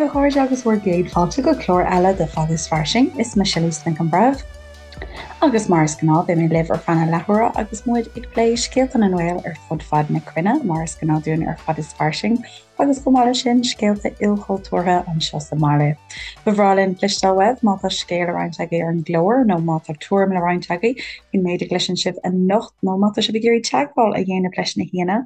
a chairde agus bhur gcéad fáilte go clár eile de Fada is Fairsing. Is mise Lisa Nic an Bhreithimh agus mar is gnáth beidh mé libh ar feadh na leathuaire agus muid ag plé scéalta na nGael ar fud fad na cruinne mar is gnáth dúinn ar Fada is Fairsing agus chomh maith leis sin scéalta ilchultúrtha anseo sa mbaile. Ba bhreá linn cloisteáil uaibh má tá scéal le roinnt agaibh ar an gclár nó má tá tuairim le roinnt agaibh faoin méid a gcloiseann sibh anocht nó má tá sibh ag iarraidh teagmháil a dhéanamh leis na haíonna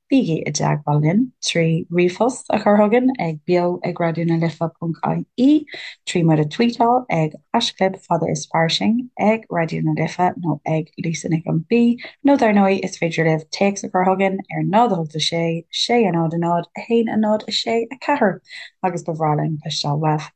Bígí i dteagmháil linn trí ríomhphost a chur chugainn ag beo ag raidió na life ponc ie, trí muid a tweetáil ag haischlib fada is fairsing, ag Raidió na Life nó ag Lisa Nic an B, nó dar ndóigh is féidir libh téacs a chur chugainn ar 0 8 6 6 0 0 1 0 6 4 agus ba bhreá linn cloisteáil uaibh.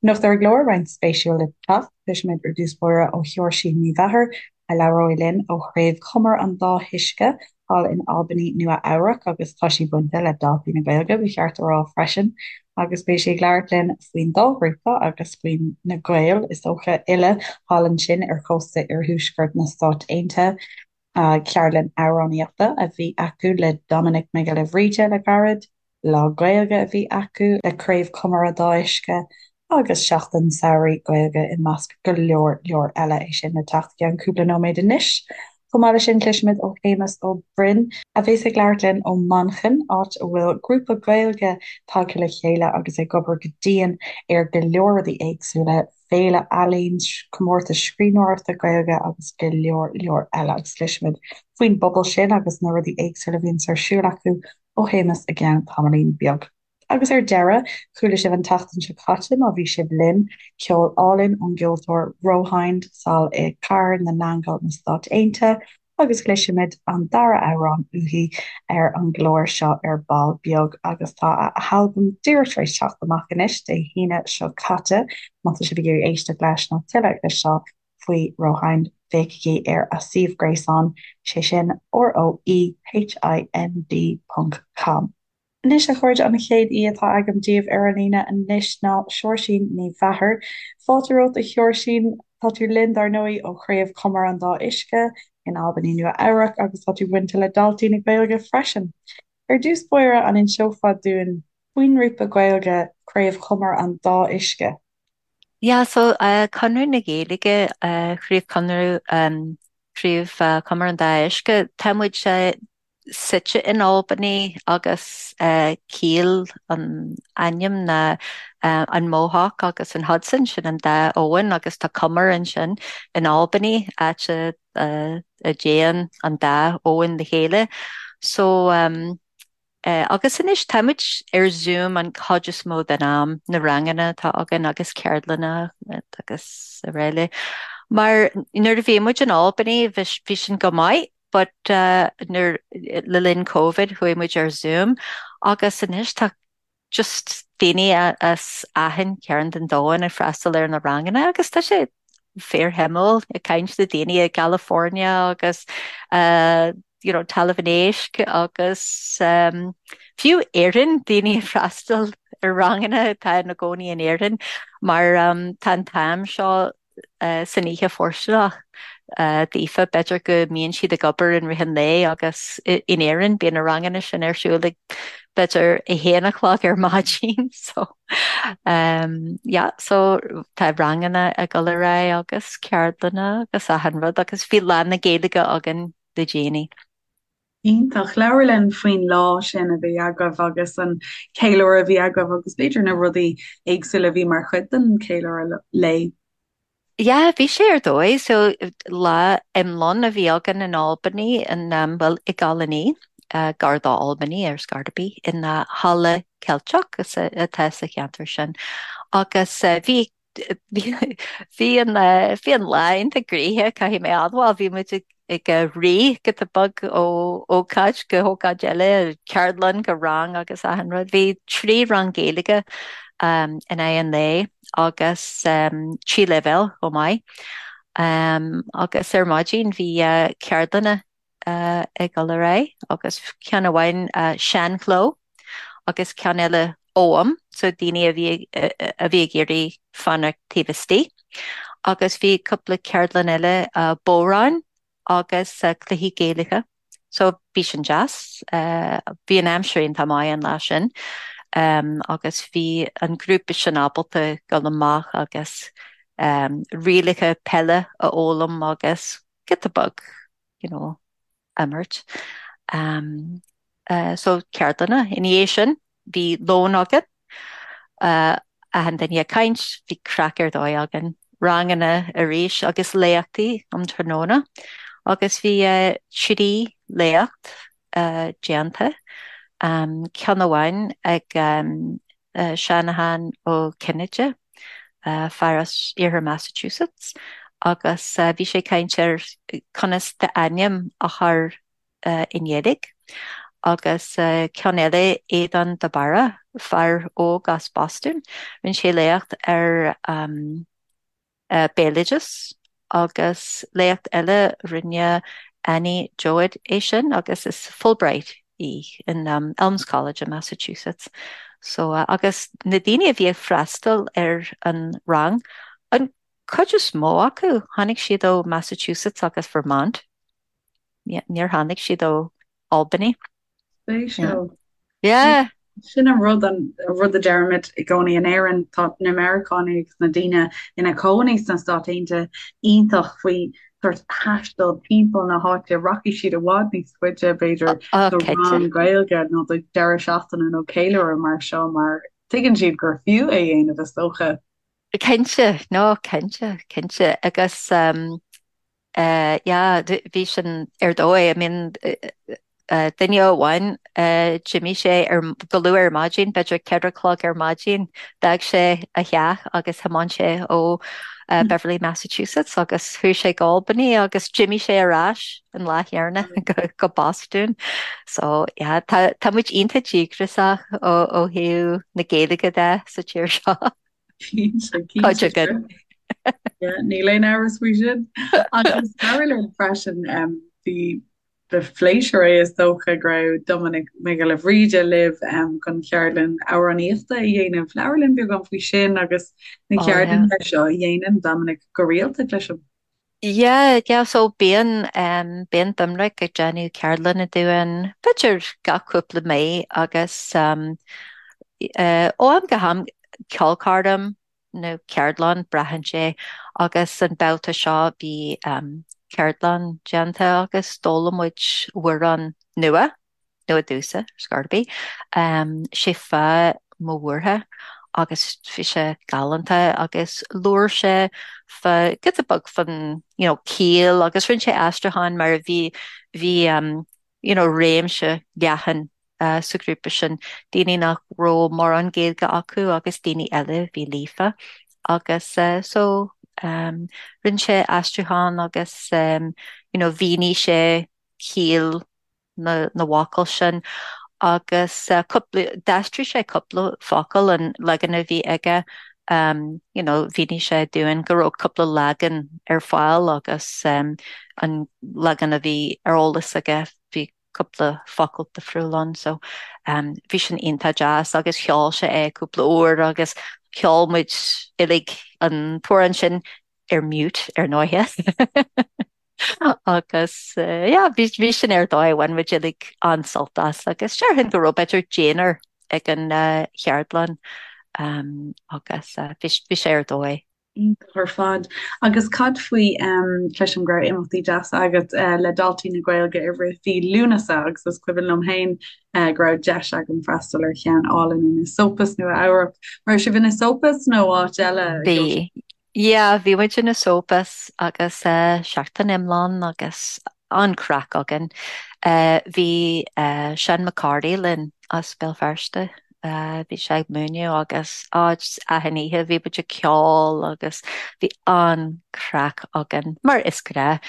Anocht ar an gclár, roinnt spéisiúil le teacht, cloisfimid ar dtús báire ó Sheoirsín Ní Mheachair, a labhróidh linn ó Chraobh Chumar an Dá hUisce thall in Albany, Nua Eabhrac agus tá sí bainte le Daltaí na Gaeilge, ba cheart a rá freisin, agus beidh sí ag labhairt linn faoin dá ghrúpa agus faoi na Gaeil, is dócha, uile thall ansin ar chósta iarthuaisceart na Stát Aontaithe. Ceardlann amhránaíochta a bhí acu le Dominic Mac Giolla Bhríde le gairid. Lá Gaeilge a bhí acu le Craobh Chumar an Dá Uisce agus Seachtain Samhraidh Gaeilge i measc go leor leor eile, é sin le teacht i gceann cúpla nóiméad anois. Chomh maith leis sin cloisfimid ó Shéamus Ó Broin, a bheas ag labhairt linn ó Manchain, áit a bhfuil grúpa Gaeilge tagtha le chéile agus ag obair go dian ar go leor rudaí éagsúla, féile ealaíon, comórtas scríbhneoireachta Gaeilge agus go leor leor eile agus cloisfimid faoin bpobal sin agus na rudaí éagsúla a bhíonns ar siúl acu ó Shéamus i gceann tamaillín beag. Agus ar deireadh, chuala sibh an tseachtain seo caite, má bhí sibh linn, ceol álainn ón gceoltóir Rohind sall i Cathair na nAingeal na Stát Aontaithe agus cloisfimid an dara amhrán uaithi ar an gclár seo ar ball beag agus tá a halbam díreach tar éis teacht amach anois, Dé hAoine seo caite. Má tá sibh ag iarraidh éisteacht leis nó tuilleadh a chloisteáil faoi Rohind, féachaigí ar a suíomh gréasáin, sé sin rohind ponc com. Anois, a chairde, an chéad aoi atá agam daoibh ar an líne anois ná Seoirsín Ní Mheachair. Fáilte romhat, a Sheoirsín. Tá tú linn, dar ndóigh, ó Chraobh Chumar an Dá Uisce in Albany, Nua Eabhrac, agus tá tú bainte le Daltaí na Gaeilge freisin. Ar dtús báire, an inseofá dúinn faoin ngrúpa Gaeilge Craobh Chumar an Dá Uisce? Yeah, so Conradh na Gaeilge, Craobh Chonradh, Craobh Chumar an Dá Uisce, tá muid suite in Albany agus ciall an ainm ná an Mohawk agus an Hudson, sin an dá abhainn agus tá cumar ansin in Albany, áit a dtéann an dá abhainn le chéile. So agus anois táimid ar Zoom an chuid is mó den am, na ranganna atá againn agus ceardlanna agus araile. Mar nuair a bhí muid in Albany bhí sin go maith but nuair le linn Covid chuaigh muid ar Zoom agus anois tá just daoine as achan chearn den domhan ag freastal ar na ranganna agus tá sé fíorshuimiúil ag caint le daoine i gCalifornia agus you know, Talamh an Éisc agus um, fiú Éirinn daoine ag freastal ar ranganna atá ina gcónaí in Éirinn mar um, tá an t-am seo san oíche fóirsteanach daofa. B'fhéidir go mbíonn siad ag obair in rith an lae agus in Éirinn bíonn na ranganna sin ar siúl ag b'fhéidir 1 a chlog ar maidin so yeah so tá ranganna ag dul ar aghaidh agus ceardlanna agus achan rud agus bhí Lá na Gaeilge againn le déanaí. Iontach. Labhair linn faoin lá sin a bhí agaibh agus an ceiliúradh a bhí agaibh agus b'fhéidir na rudaí éagsúla a bhí mar chuid den cheiliúradh lae. Yeah, bhí sé ar dóigh. So lá iomlán a bhí againn in Albany, in, bhuel, i gColony, gar do Albany ar scor ar bith, in halla Ceilteach atá sa cheantar sin. Agus bhí Bhí an bhí an lá iontach gnoitheach, caithfidh mé a admháil. Bhí muid ag rith giota beag ó ócáid go hócáid eile, ceardlann go rang agus achan rud. Bhí trí rang Gaeilge in aghaidh an lae agus trí leibhéal chomh maith. Agus ar maidin bhí ceardlanna ag dul ar aghaidh agus ceann amháin seanchló agus ceann eile Ogham, so daoine a bhí a bhí ag iarraidh fanacht taobh istigh. Agus bhí cúpla ceardlann eile bodhráin agus cluichí Gaelacha. So bhí sin deas. Bhí an aimsir iontach maith an lá sin. Agus bhí an grúpa sin ábalta dul amach agus rialacha peile a fhoghlaim agus giota beag, you know, imirt. So ceardlanna. Ina dhiaidh sin bhí lón againn, achan duine ag caint, bhí craic ar dóigh againn. Ranganna arís agus léachtaí um tráthnóna agus bhí 3 léacht déanta, ceann amháin ag Seanachán Ó Cinnéide, fear as iarthar Massachusetts, agus bhí sé ag caint ar conas d'ainm a chur i nGaeilge, agus ceann eile, Aodhán de Barra, fear óg as Bostún, rinne sé léacht ar béaloideas agus léacht eile rinne Annie Joad é sin agus is Fulbright í in Elms College in Massachusetts. So agus na daoine a bhí ag freastal ar an rang, an cuid is mó acu, tháinig siad ó Massachusetts agus Vermont. Níor tháinig siad ó Albany. Spéisiúil. Yeah. Sin an rud, an rud a deirimid i gcónaí in Éirinn, tá na Meiriceánaigh agus na daoine ina cónaí sna Stáit Aontaithe iontach faoi sórt taisteal timpeall na háite, rachaidh siad i bhfad níos faide b'fhéidir do rang Gaeilge nó do deireadh seachtaine nó ceiliúradh mar seo mar tuigeann siad gur fiú é a dhéanamh is dócha. Cinnte, no, cinnte, cinnte agus Yeah, bhí sin ar dóigh. I mean, duine amháin, d'imigh sé ar, go luath ar maidin, b'fhéidir 4 a chlog ar maidin, d'fhág sé a theach agus thiomáin sé ó Beverly, Massachusetts agus chuaigh sé go Albany agus d'imigh sé ar ais an lá chéanna go Bostún. So, yeah, tá, tá muid iontach díograiseach ó, ó thaobh na Gaeilge de sa tír seo. Cuid againn. Níl aon amhras faoi sin. Agus labhair linn freisin bhí ba phléisiúr é is dócha go raibh Doiminic Mac Giolla Bhríde libh chun ceardlann amhránaíochta a dhéanamh. Labhair linn beagán faoi sin agus na ceardlanna seo a dhéanann Doiminic go rialta cloisim. Yeah, yeah, so bíonn, bíonn Doiminic ag déanamh ceardlanna dúinn, b'fhéidir gach cúpla mí agus ó am go ham ceolchoirm nó ceardlann, braitheann sé, agus an babhta seo bhí ceardlann déanta agus d'fhoghlaim muid amhrán nua. nua domhsa, ar scor ar bith. Sé fáth mo bhuartha agus bhí sé galánta agus labhair sé fá giota beag fán you know ciall agus rinne sé aistriúchán mar bhí bhí you know réimse leathan sa ghrúpa sin, daoine nach raibh mórán Gaeilge acu agus daoine eile a bhí líofa agus so rinne sé aistriúchán agus you know mhínigh sé ciall na bhfocal sin agus cúpla, d'aistrigh sé cúpla focal an leagan a bhí aige you know mhínigh sé dúinn go raibh cúpla leagan ar fáil agus an leagan a bhí ar eolas aige bhí cúpla focal difriúil ann so bhí sin iontach deas agus cheol sé é cúpla uair agus cheol muid uilig an t-amhrán sin ar mute ar ndóighe. Agus yeah, bhí bhí sin ar dóigh, bhain muid uilig an-sult as agus déarfainn go raibh b'fhéidir deichniúr ag an cheardlann agus bhí bhí sé ar dóigh. Iontach ar fad. Agus cad faoi, cloisim go raibh imeachtaí deasa agat le Daltaí na Gaeilge i rith mhí Lúnasa agus is cuimhin liom féin go raibh deis agam freastal ar cheann álainn in Esopus, Nua Eabhrac. Raibh sibh in Esopus nó áit eile? Bhí. Yeah, bhí muid in Esopus agus seachtain iomlán agus an-chraic againn. Bhí Seán McCarthy linn as Béal Feirste, bhí sé ag múineadh agus á just achan oíche bhí muid ag ceol agus bhí an-chraic againn, mar is gnách.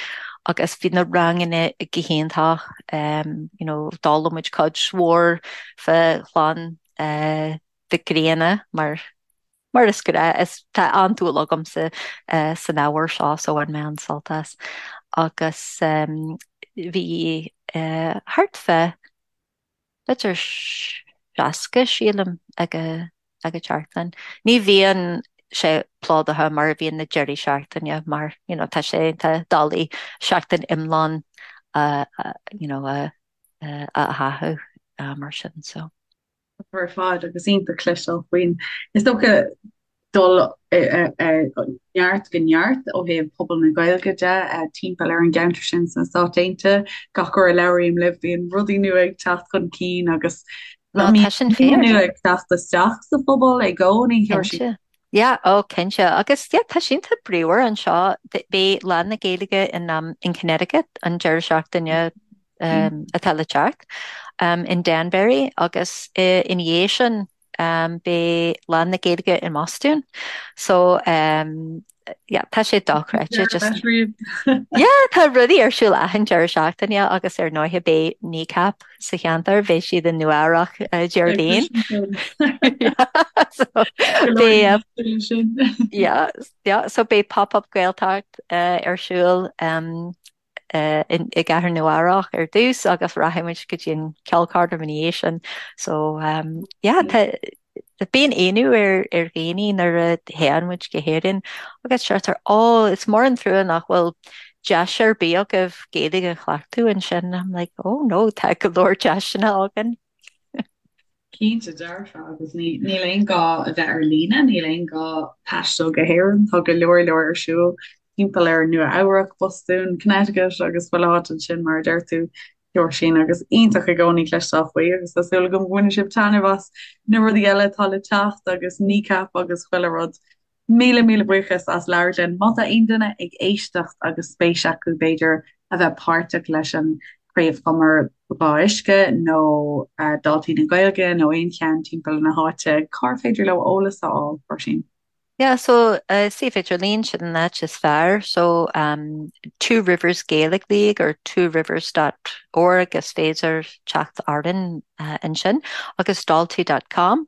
Agus bhí na ranganna go hiontach, you know, d'fhoghlaim muid cuid mhór fá chlann Mhic Grianna mar Mar is gnách, is tá an-dúil agamsa san ábhar seo so bhain mé an-sult as. Agus bhí thart fá b'fhéidir 60, sílim, ag an tseachtain. Ní bhíonn sé plódaithe mar a bhíonn na deirí seachtaine mar you know tá sé tá doiligh seachtain iomlán you know a a tháthú mar sin so. Ar fad agus iontach cloisteáil faoin, is dócha, dul ó neart go neart ó thaobh pobal na Gaeilge de timpeall ar an gceantar sin sna Stáit Aontaithe. Gach uair a labhraím libh bíonn rudaí nua ag teacht chun cinn agus No, tá sin fíor. nua ag teacht isteach sa phobal i gcónaí. Cinnte. Yeah, oh cinnte. Agus yeah, tá sé iontach bríomhar anseo. Beidh Lá na Gaeilge in, um, in Connecticut an deireadh seachtaine um, atá le teacht um, in Danbury agus uh, ina dhiaidh sin um, beidh Lá na Gaeilge i mBostún. So um, yeah, tá sé dochreidte just yeah, tá rudaí ar siúl achan deireadh seachtaine agus ar ndóigh beidh Kneecap sa cheantar, beidh siad i Nua Eabhrac uh, Déardaoin. So, beidh, yeah, yeah, so beidh pop-up Gaeltacht uh, ar siúl um, i gcathair Nua Eabhrac ar dtús agus rachaidh muid go dtí an ceolchoirm ina dhiaidh sin. So um, yeah, tá bíonn ionadh ar ar dhaoine nuair a théann muid go hÉirinn agus deirtear ó is mór an trua nach bhfuil deis ar bith agaibh Gaeilge a chleachtadh ansin. I'm like, oh no, tá go leor deiseanna againn. Cinnte dearfa, agus níl aon gá a bheith ar líne, níl aon gá taisteal go hÉirinn, tá go leor leor ar siúl timpeall ar Nua Eabhrac, Bostún, Connecticut agus chuile áit ansin mar a deir tú, Seoirsín, agus iontach i gcónaí cloisteáil faoi agus tá súil agam go mbainfidh sibh taitneamh as na rudaí eile atá le teacht agus Kneecap agus chuile rud. Míle míle buíochas as labhairt linn. Má tá aon duine ag éisteacht agus spéis acu b'fhéidir a bheith páirteach leis an Craobh Chumar Dhá Uisce nó Daltaí na Gaeilge nó aon cheann timpeall na háite, cár féidir leo eolas a fháil, Róisín? Yeah, so suíomh idirlín, sin an áit is fearr. So um, Two Rivers Gaelic League or tworivers dot org is féidir teacht orainn uh, ansin agus daltaí dot com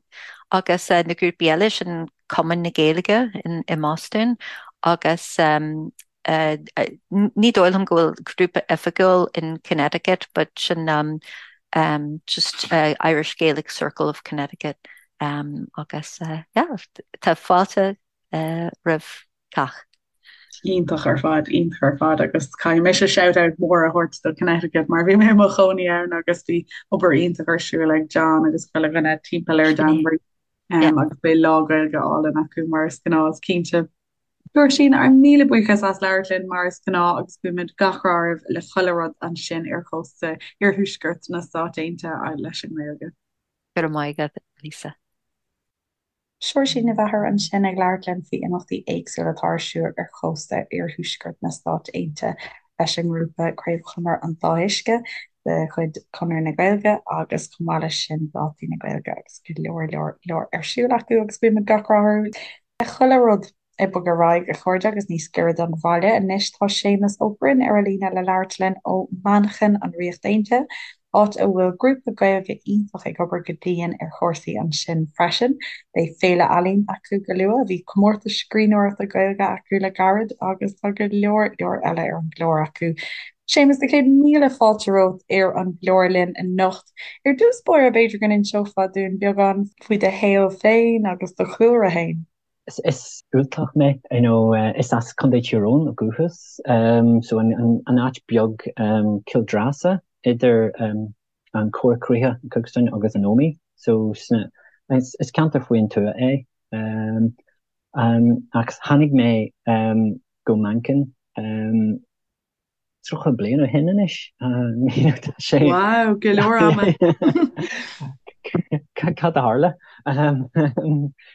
agus uh, na grúpaí eile sin Cumann na Gaeilge i mBostún agus ní dóigh liom go bhfuil grúpa oifigiúil in Connecticut but sin just Irish Gaelic Circle of Connecticut agus yeah tá fáilte roimh cách. Iontach ar fad, iontach ar fad agus caithfidh mise shout out mór a thabhairt do Connecticut mar bhí mé i mo chónaí ann agus bhí obair iontach ar siúl ag John agus chuile dhuine timpeall ar Danbury. Yeah. Agus beidh lá Gaeilge álainn acu mar is gnáth, is cinnte. Róisín, ár míle buíochas as labhairt linn mar is gnáth agus guímid gach rath oraibh le chuile rud ansin ar chósta iarthuaisceart na Stát Aontaithe leis an nGaeilge. Go raibh maith agat, Lisa. Seoirsín Ní Mheachair ansin ag labhairt linn faoi imeachtaí éagsúla atá ar siúl ar chósta iarthuaisceart na Stát Aontaithe leis an ngrúpa Craobh Chumar an Dá Uisce de chuid Chonradh na Gaeilge agus chomh maith leis sin Daltaí na Gaeilge agus go leor leor leor ar siúl acu agus guímid gach rath orthu le chuile rud. Ag bogadh ar aghaidh a chairde agus níos giorra don bhaile anois tá Séamus Ó Broin ar an líne le labhairt linn ó Manchain, an Ríocht Aontaithe, áit a bhfuil grúpa Gaeilge iontach ag obair go dian ar chúrsaí ansin freisin. Beidh féile ealaíon acu go luath, bhí comórtas scríbhneoireachta Gaeilge acu le gairid agus tá go leor leor eile ar an gclár acu. Séamus, na céad míle fáilte romhat ar an gclár linn anocht. Ar dtús báire, b'fhéidir go n-inseofá dúinn beagán faoi do shaol féin agus do chúlra féin. Is Ultach mé, you know, is as Contae Thír Eoghain ó dhúchas, so an áit beag Cill Dreasa idir an Corr Chríochach, Cookstown agus an Ómaigh, so is ceantar faoin tuath é. Ach tháinig mé go Manchain 30 bliain ó shin anois. Tá sé. Wow, go leor ama. Cad a tharla?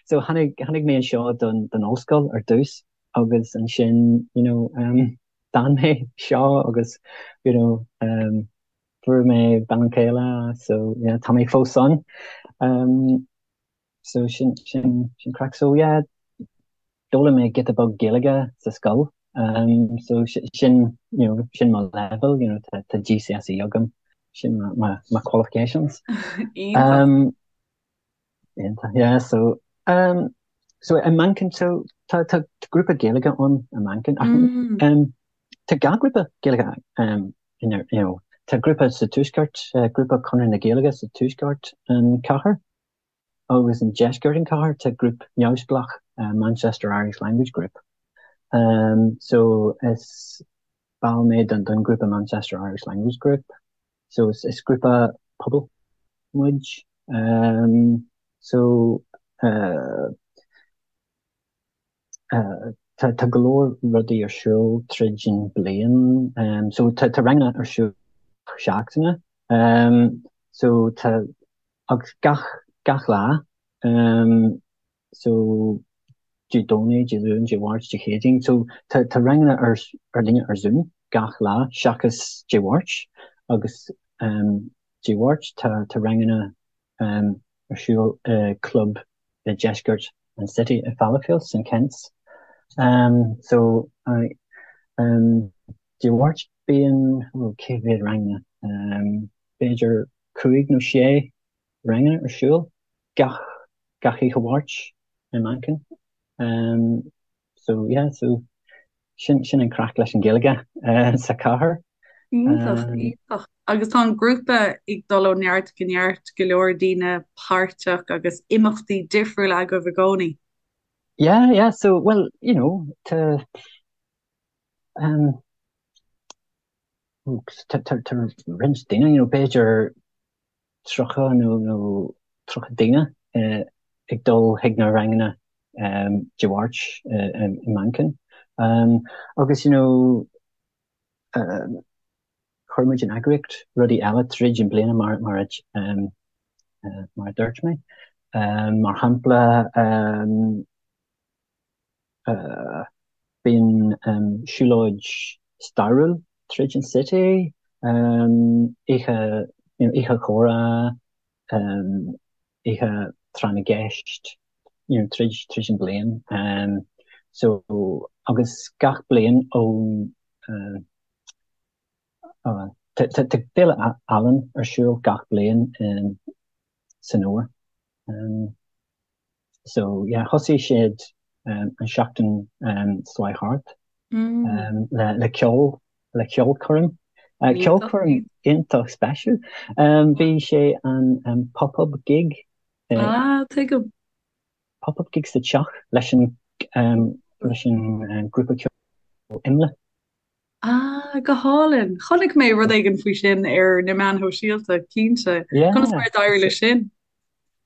So tháinig tháinig mé anseo don don ollscoil ar dtús agus ansin you know um, d'fhan mé anseo agus you know um, fuair mé bean chéile so yeah, tá mé fós ann. Um, So sin sin sin craic. So yeah, d'fhoghlaim mé giota beag Gaeilge sa scoil. Um, so sin you know, sin mo level, you know, tá tá GCSE agam, sin my, my, my qualifications. Iontach. Um, iontach, yeah, so um, so i Manchain so tá tá grúpa Gaeilge ann i Manchain ach Mm. um, tá dhá grúpa Gaeilge um, in, you know, tá grúpa sa tuaisceart, uh, grúpa Conradh na Gaeilge sa tuaisceart an cathair Agus i ndeisceart an cathair tá grúp neamhspleách, Manchester Irish Language Group. So is ball mé den grúpa Manchester Irish Language Group. So is grúpa pobail muid. So tá tá go leor rudaí ar siúl tríd an bliain. So tá tá ranganna ar siúl seachtaine. So tá agus gach gach lá. So Dé Domhnaigh, Dé Luain, Dé Mháirt, Dé Céadaoin. So tá tá ranganna ar ar líne ar Zoom gach lá seachas Dé Mháirt agus Dé Mháirt tá tá ranganna ar siúl i club i deisceart an City i Fallowfield, St Kent's. So Dé Mháirt bíonn ó cé mhéad ranganna? B'fhéidir cúig nó sé ranganna ar siúl gach gach oíche Mháirt i Manchain. So yeah, so sin sin an craic leis an Ghaeilge sa chathair. Iontach, iontach. Agus tá an grúpa ag dul ó neart go neart, go leor daoine páirteach agus imeachtaí difriúla agaibh i gcónaí. Yeah, yeah, so well, you know, tá um, tá tá tá roinnt daoine, you know, b'fhéidir 30 nó nó 30 daoine ag dul chuig na ranganna Dé Mháirt i Manchain. Agus you know chuir muid in eagraíocht rudaí eile tríd an bliana mar mar a mar a dúirt mé. Mar shampla Bíonn siúlóid stairiúil tríd an City, oíche oíche chomhrá, oíche tráth na gceist, you know tríd tríd an bliain. So agus gach bliain ón tá féile ealaíon ar siúl gach bliain san fhómhar. So yeah, thosaigh siad an seachtain seo thart le le ceol le ceolchoirm. Ceolchoirm iontach speisialta. Bhí sé an pop-up gig. Ah, tuigim. Pop-up gig sa teach leis an leis an grúpa ceoil Imle. Ah, go hálainn. Chonaic mé rud éigin faoi sin ar na meáin shóisialta, cinnte. Conas Yeah. mar a d'éirigh leis sin?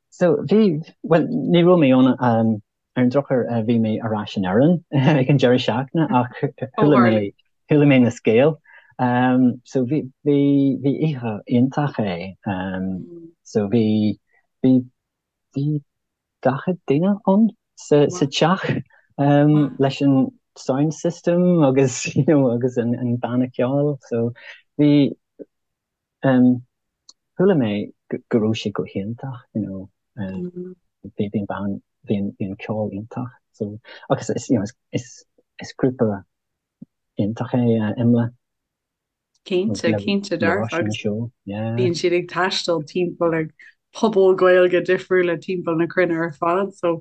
So bhí, bhuel, ní raibh mé ann, ar an drochuair bhí mé ar ais in Éirinn ag an deireadh seachtaine ach Ó chuala tharla. mé, chuala mé na scéal. So bhí, bhí, bhí oíche iontach é. So bhí, bhí, bhí 40 duine ann sa Wow. teach Wow. leis an sound system agus you know agus an an banna ceoil so bhí um, chuala mé go raibh sé go hiontach you know um, bhí bhí an band bhí an bhí an ceol iontach so agus is you know is is is grúpa iontach é uh, Imle. Cinnte, cinnte dearfa agus bíonn siad ag taisteal timpeall ar pobail Gaeilge difriúla timpeall na cruinne ar fad, so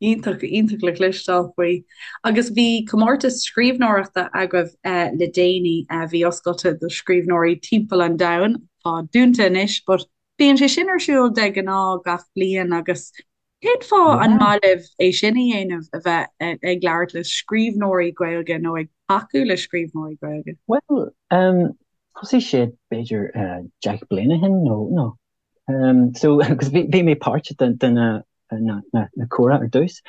iontach, iontach le cloisteáil faoi. Agus bhí comórtas scríbhneoireachta agaibh le déanaí a bhí oscailte do scríbhneoirí timpeall an domhain, tá dúnta anois, but bíonn sé sin ar siúl de ghnáth gach bliain agus Cén fáth an maith libh é sin a dhéanamh, a bheith ag labhairt le scríbhneoirí Gaeilge nó ag tacú le scríbhneoirí Gaeilge? Bhuel, thosaigh sé b'fhéidir 10 bliain ó shin nó, nó, so, agus bhí, bhí mé páirteach de, de na, na, na, na comhrá ar dtús.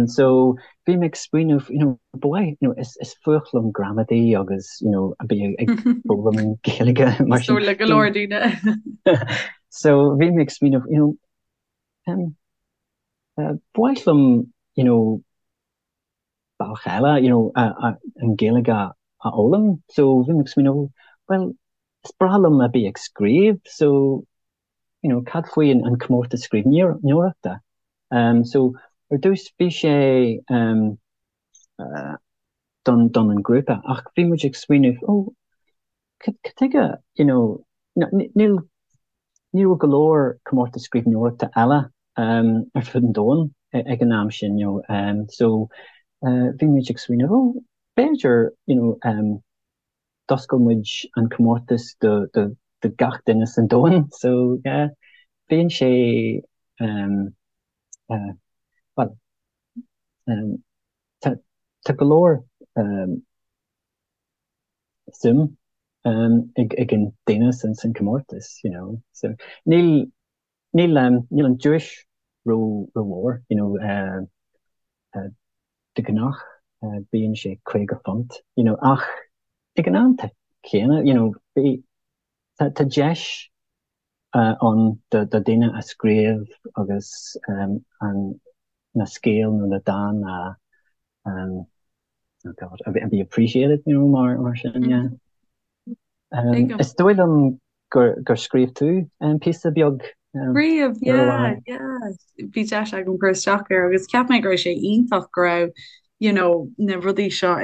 So, bhí mé ag smaoineamh, you know, ba mhaith, you know, is, is fuath liom gramadaí agus, you know, a bheith ag foghlaim Gaeilge mar Is sin. dóigh le go leor daoine. So, bhí mé ag smaoineamh, you know, Ba mhaith liom, you know, bealach eile, you know, an Ghaeilge a fhoghlaim. So bhí mé ag smaoineamh, bhuel, is breá liom a bheith ag scríobh, so, you know, cad faoi an comórtas scríbhneoireachta? So ar dtús bhí sé don don an grúpa ach bhí muid ag smaoineamh, oh, Cad chuige, you know, níl, ní raibh go leor comórtas scríbhneoireachta eile ar fud an domhain ag an am sin, you know, so bhí muid ag smaoineamh, oh, b'fhéidir, you know, d'oscail muid an comórtas do, do, do gach duine san domhan, so yeah, bíonn sé, well, tá, tá go leor suim ag an daoine san comórtas, you know. So níl. Níl níl an duais ró rómhór, you know, de ghnáth bíonn sé £50, you know, ach ag an am céanna, you know, bhí, tá tá deis ann do do daoine a scríobh agus an na scéal nó na dán a oh God, a be appreciated, you know, mar mar sin, yeah. Is dóigh liom gur gur scríobh tú píosa beag Scríobh, yeah, yeah. Bhí deis agam cur isteach air agus cheap mé go raibh sé iontach go raibh you know, na rudaí seo,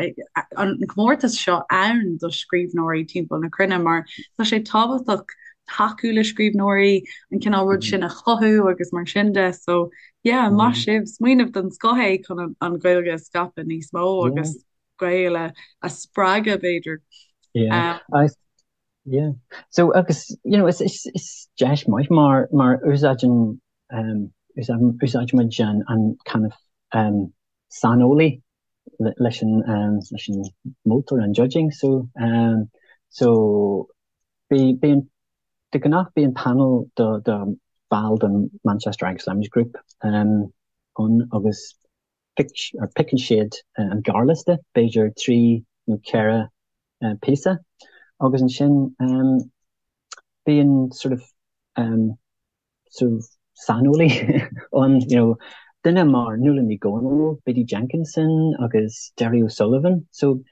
an comórtas seo ann do scríbhneoirí timpeall na cruinne mar tá sé tábhachtach tacú le scríbhneoirí, an cineál rud sin a chothú agus mar sin de. So yeah, maith sibh, smaoineamh den scoth é chun an Ghaeilge a scaipeadh níos mó agus Gaeil a spreagadh b'fhéidir. Yeah. Um, yeah. So agus you know, is, is, is deis maith mar mar úsáideann um, úsáidimid an, an kind of um, saineolaí leis an um, leis an moltóir an judging so um, so bí bíonn de ghnáth bíonn panel do do ball den Manchester Irish Language Group um, ann agus pick or piocann siad an gearrliosta b'fhéidir 3 nó 4 píosa agus ansin um, bíonn sort of um, sort of saineolaí ann, you know, duine mar Nuala Ní Dhomhnaill, Biddy Jenkinson agus Derry O'Sullivan. So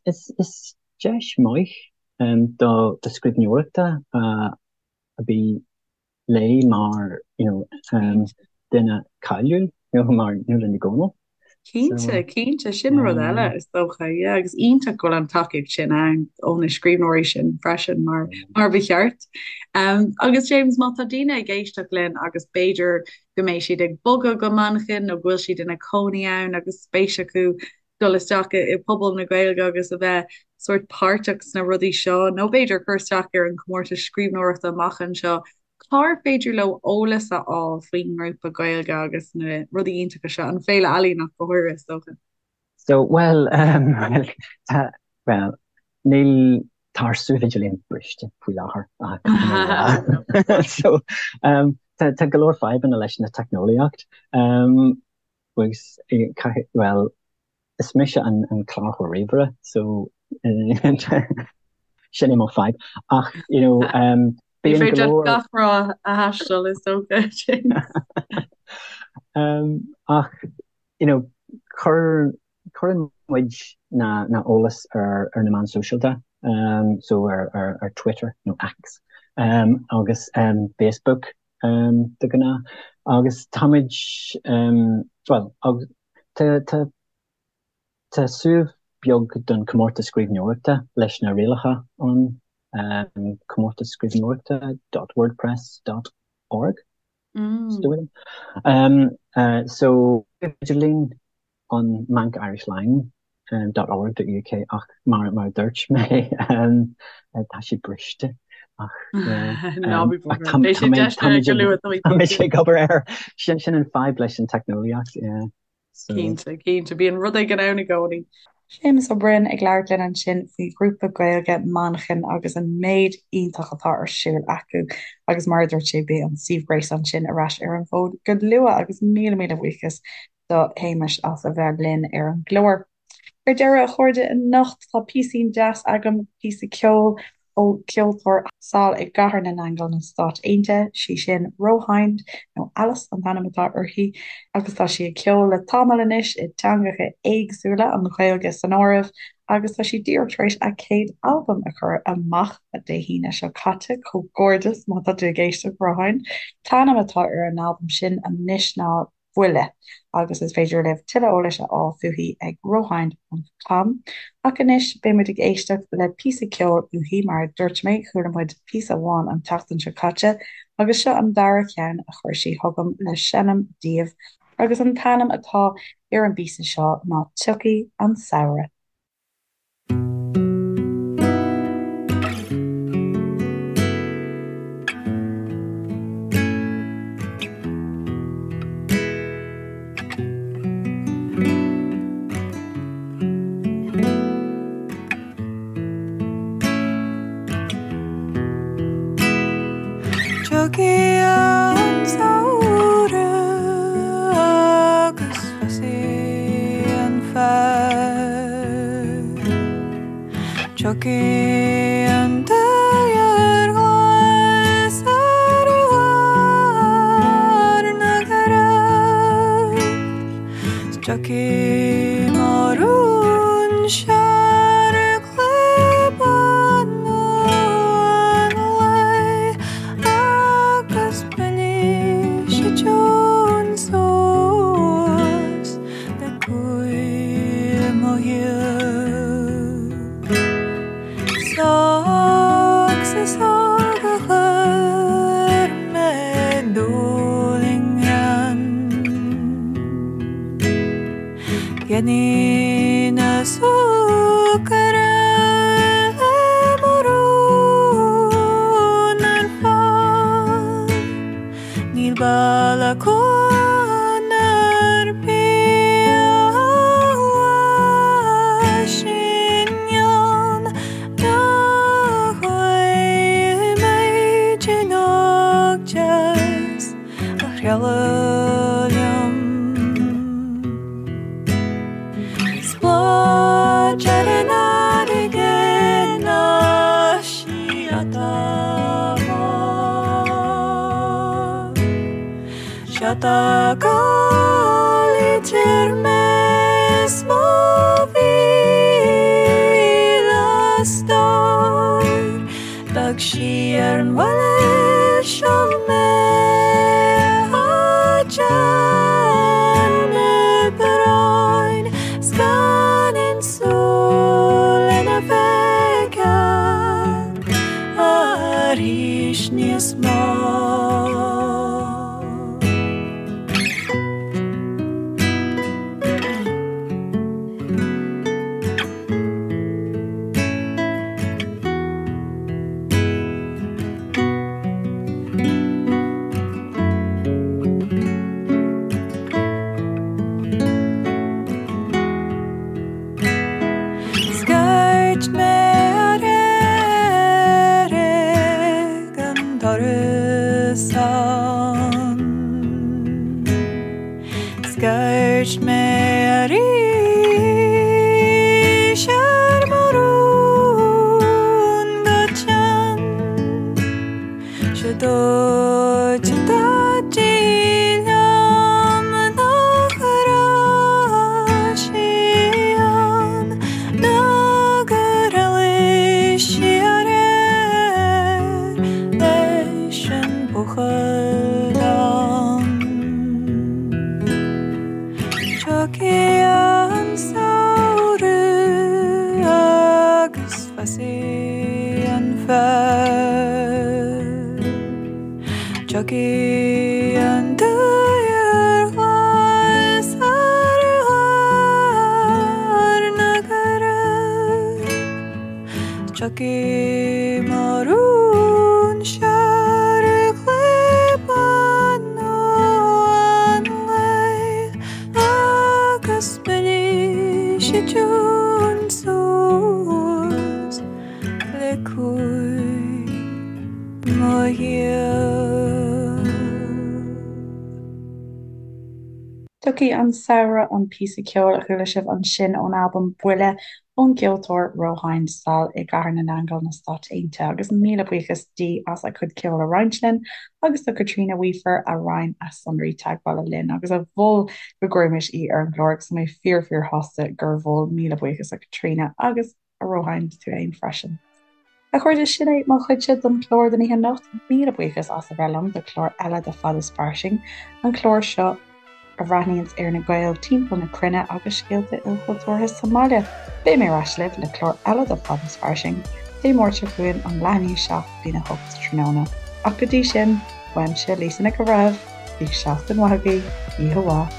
is, is deis maith um, do, do scríbhneoireachta uh, a bhí léi mar, you know, um, duine cáiliúil, you know, mar Nuala Ní Dhomhnaill. Cinnte, cinnte, sin rud eile is dócha, yeah, agus iontach go bhfuil an tacaíocht sin ann ó na scríbhneoirí sin freisin mar mar ba cheart. Um, agus James, má tá daoine ag éisteacht linn agus b'fhéidir go mbeidh siad ag bogadh go Manchain nó go bhfuil siad ina cónaí ann agus spéis acu dul isteach i pobal na Gaeilge agus a bheith sórt páirteach sna rudaí seo nó b'fhéidir cur isteach ar an chomórtas scríbhneoireachta amach anseo, Cár féidir leo eolas a fháil faoin ngrúpa Gaeilge agus na rudaí iontacha seo, an Féile Ealaíon ach go háirithe, is dócha? So, bhuel, bhuel, tá, bhuel, níl, tá ár suíomh idirlín briste faoi láthair, caithfidh mé a rá. So, tá, tá go leor fadhbanna leis na teicneolaíocht, agus, caithfidh, bhuel, Is mise an cláraitheoir ríomhaire so sin é mo fadhb. Ach, you know, Ní bíonn go féidir leor gach ráth a thaisteal is dócha, James. Ach, you know, cuir, cuireann muid na, na eolas ar, ar na meáin sóisialta, so ar, ar, ar Twitter nó X, agus Facebook de ghnáth. Agus táimid, bhuel, agus Tá, tá, tá suíomh beag don chomórtas scríbhneoireachta leis na rialacha ann, comórtas scríbhneoireachta dot wordpress dot org, is dóigh liom. So, idirlíon an mancirishlang dot org dot uk ach mar, mar a dúirt mé, tá sé briste ach, Ná bí ach tá, Beidh tá sé mé, deis tá go muid ag, luath, tá mé tá muid cinnte. ag obair air. Sin, sin an fadhb leis an teicneolaíocht, yeah. So. Cinnte, cinnte, bíonn rud éigin ann i gcónaí. Séamus Ó Broin ag labhairt linn ansin faoi ghrúpa Gaeilge Manchain agus an méid iontach atá ar siúl acu agus mar a dúirt sé beidh an suíomh gréasáin sin ar ais ar an bhfód go luath agus míle míle buíochas do Shéamus as a bheith linn ar an gclár. Ar deireadh, a chairde, anocht tá píosín deas agam, píosa ceoil ó cheoltóir sall i gCathair na nAingeal na Stáit Aontaithe, sí sin Rohind, nó Alice an t-ainm atá uirthi, agus tá sí ag ceol le tamall anois i dteangacha éagsúla, an Ghaeilge san áireamh, agus tá sí díreach tar éis a céad albam a chur amach Dé hAoine seo caite, comhghairdeas má tá tú ag éisteacht, Rohind. An t-ainm atá ar an albam sin anois ná. Buile, agus is féidir libh tuilleadh eolais a fháil fúithi ag rohind ponc com. Ach anois, beidh muid ag éisteacht le píosa ceoil uaithi, mar a dúirt mé, chuala muid píosa amháin an tseachtain seo caite, agus seo an dara ceann a chuir sí chugam le seinm daoibh, agus an t-ainm atá ar an bpíosa seo ná Tiocfaidh an Samhradh. Tiocfaidh. Tiocfaidh an daor ghlas ar bharr na gcrann 's tiocfaidh mo rún searg le bánú an lae agus buailfidh sí tiún suas le cúil mo shaoil. 'S is óg a chuir mé dúil i ngreann. Dheimhnigh na súcaire le mo rún ar fad. Níl baile cuan ar bith a síneann nach bhfaighidh mé tinn óg deas a thrialladh liom. 'S bláth ar an fharraige ná síoda bhán. Síoda gal idir mé is mo mhíle stór. D'fhág sí ar an bhaile seo mé a déanamh bróin 's gan aon súil lena feiceáil arís níos mó. Scairt mé aréir ag an doras ann. Scairt mé arís ar mo rún go teann. 'Sé dúirt Daidí liom nach raibh sí ann ná gur éalaigh sí aréir leis an buachaill donn. Tiocfaidh an samhradh agus fásfaidh an féar. Tiocfaidh an daor ghlas ar bharr na gcrann. Tiocfaidh mo rún searg le bánú an lae agus buailfidh sí tiún suas le cúil mo shaoil. Tiocfaidh an Samhradh, an píosa ceoil a chuala sibh ansin ón albam Buile ón gceoltóir Rohain sall i gCathair na nAingeal na Stáit Aontaithe agus míle buíochas di as a cuid ceoil a roinnt linn agus do Caitríona Weafer a roinn a sonraí teagmhála linn agus a mhol go gcuirfimis í ar an gclár agus tá mé fíor fíor shásta gur mhol. Míle buíochas a Chaitríona agus a Rohain tú fhéin freisin. A chairde, sin é mo chuidse don chlár don oíche anocht. Míle buíochas as a bheith liom do chlár eile de Fad is Fairsing, an clár seo a bhreathnaíonns ar na Gaeil timpeall na cruinne agus scéalta ilchultúrtha sa mbaile. Beidh mé ar ais libh le clár eile de Fad is Fairsing Dé Máirt seo chugainn ón leath i ndiaidh 7 go dtí'n 8 tráthnóna. Ach go dtí sin, uaimse, Lisa Nic an Bhreithimh, bíodh seachtain mhaith agaibh, oíche mhaith.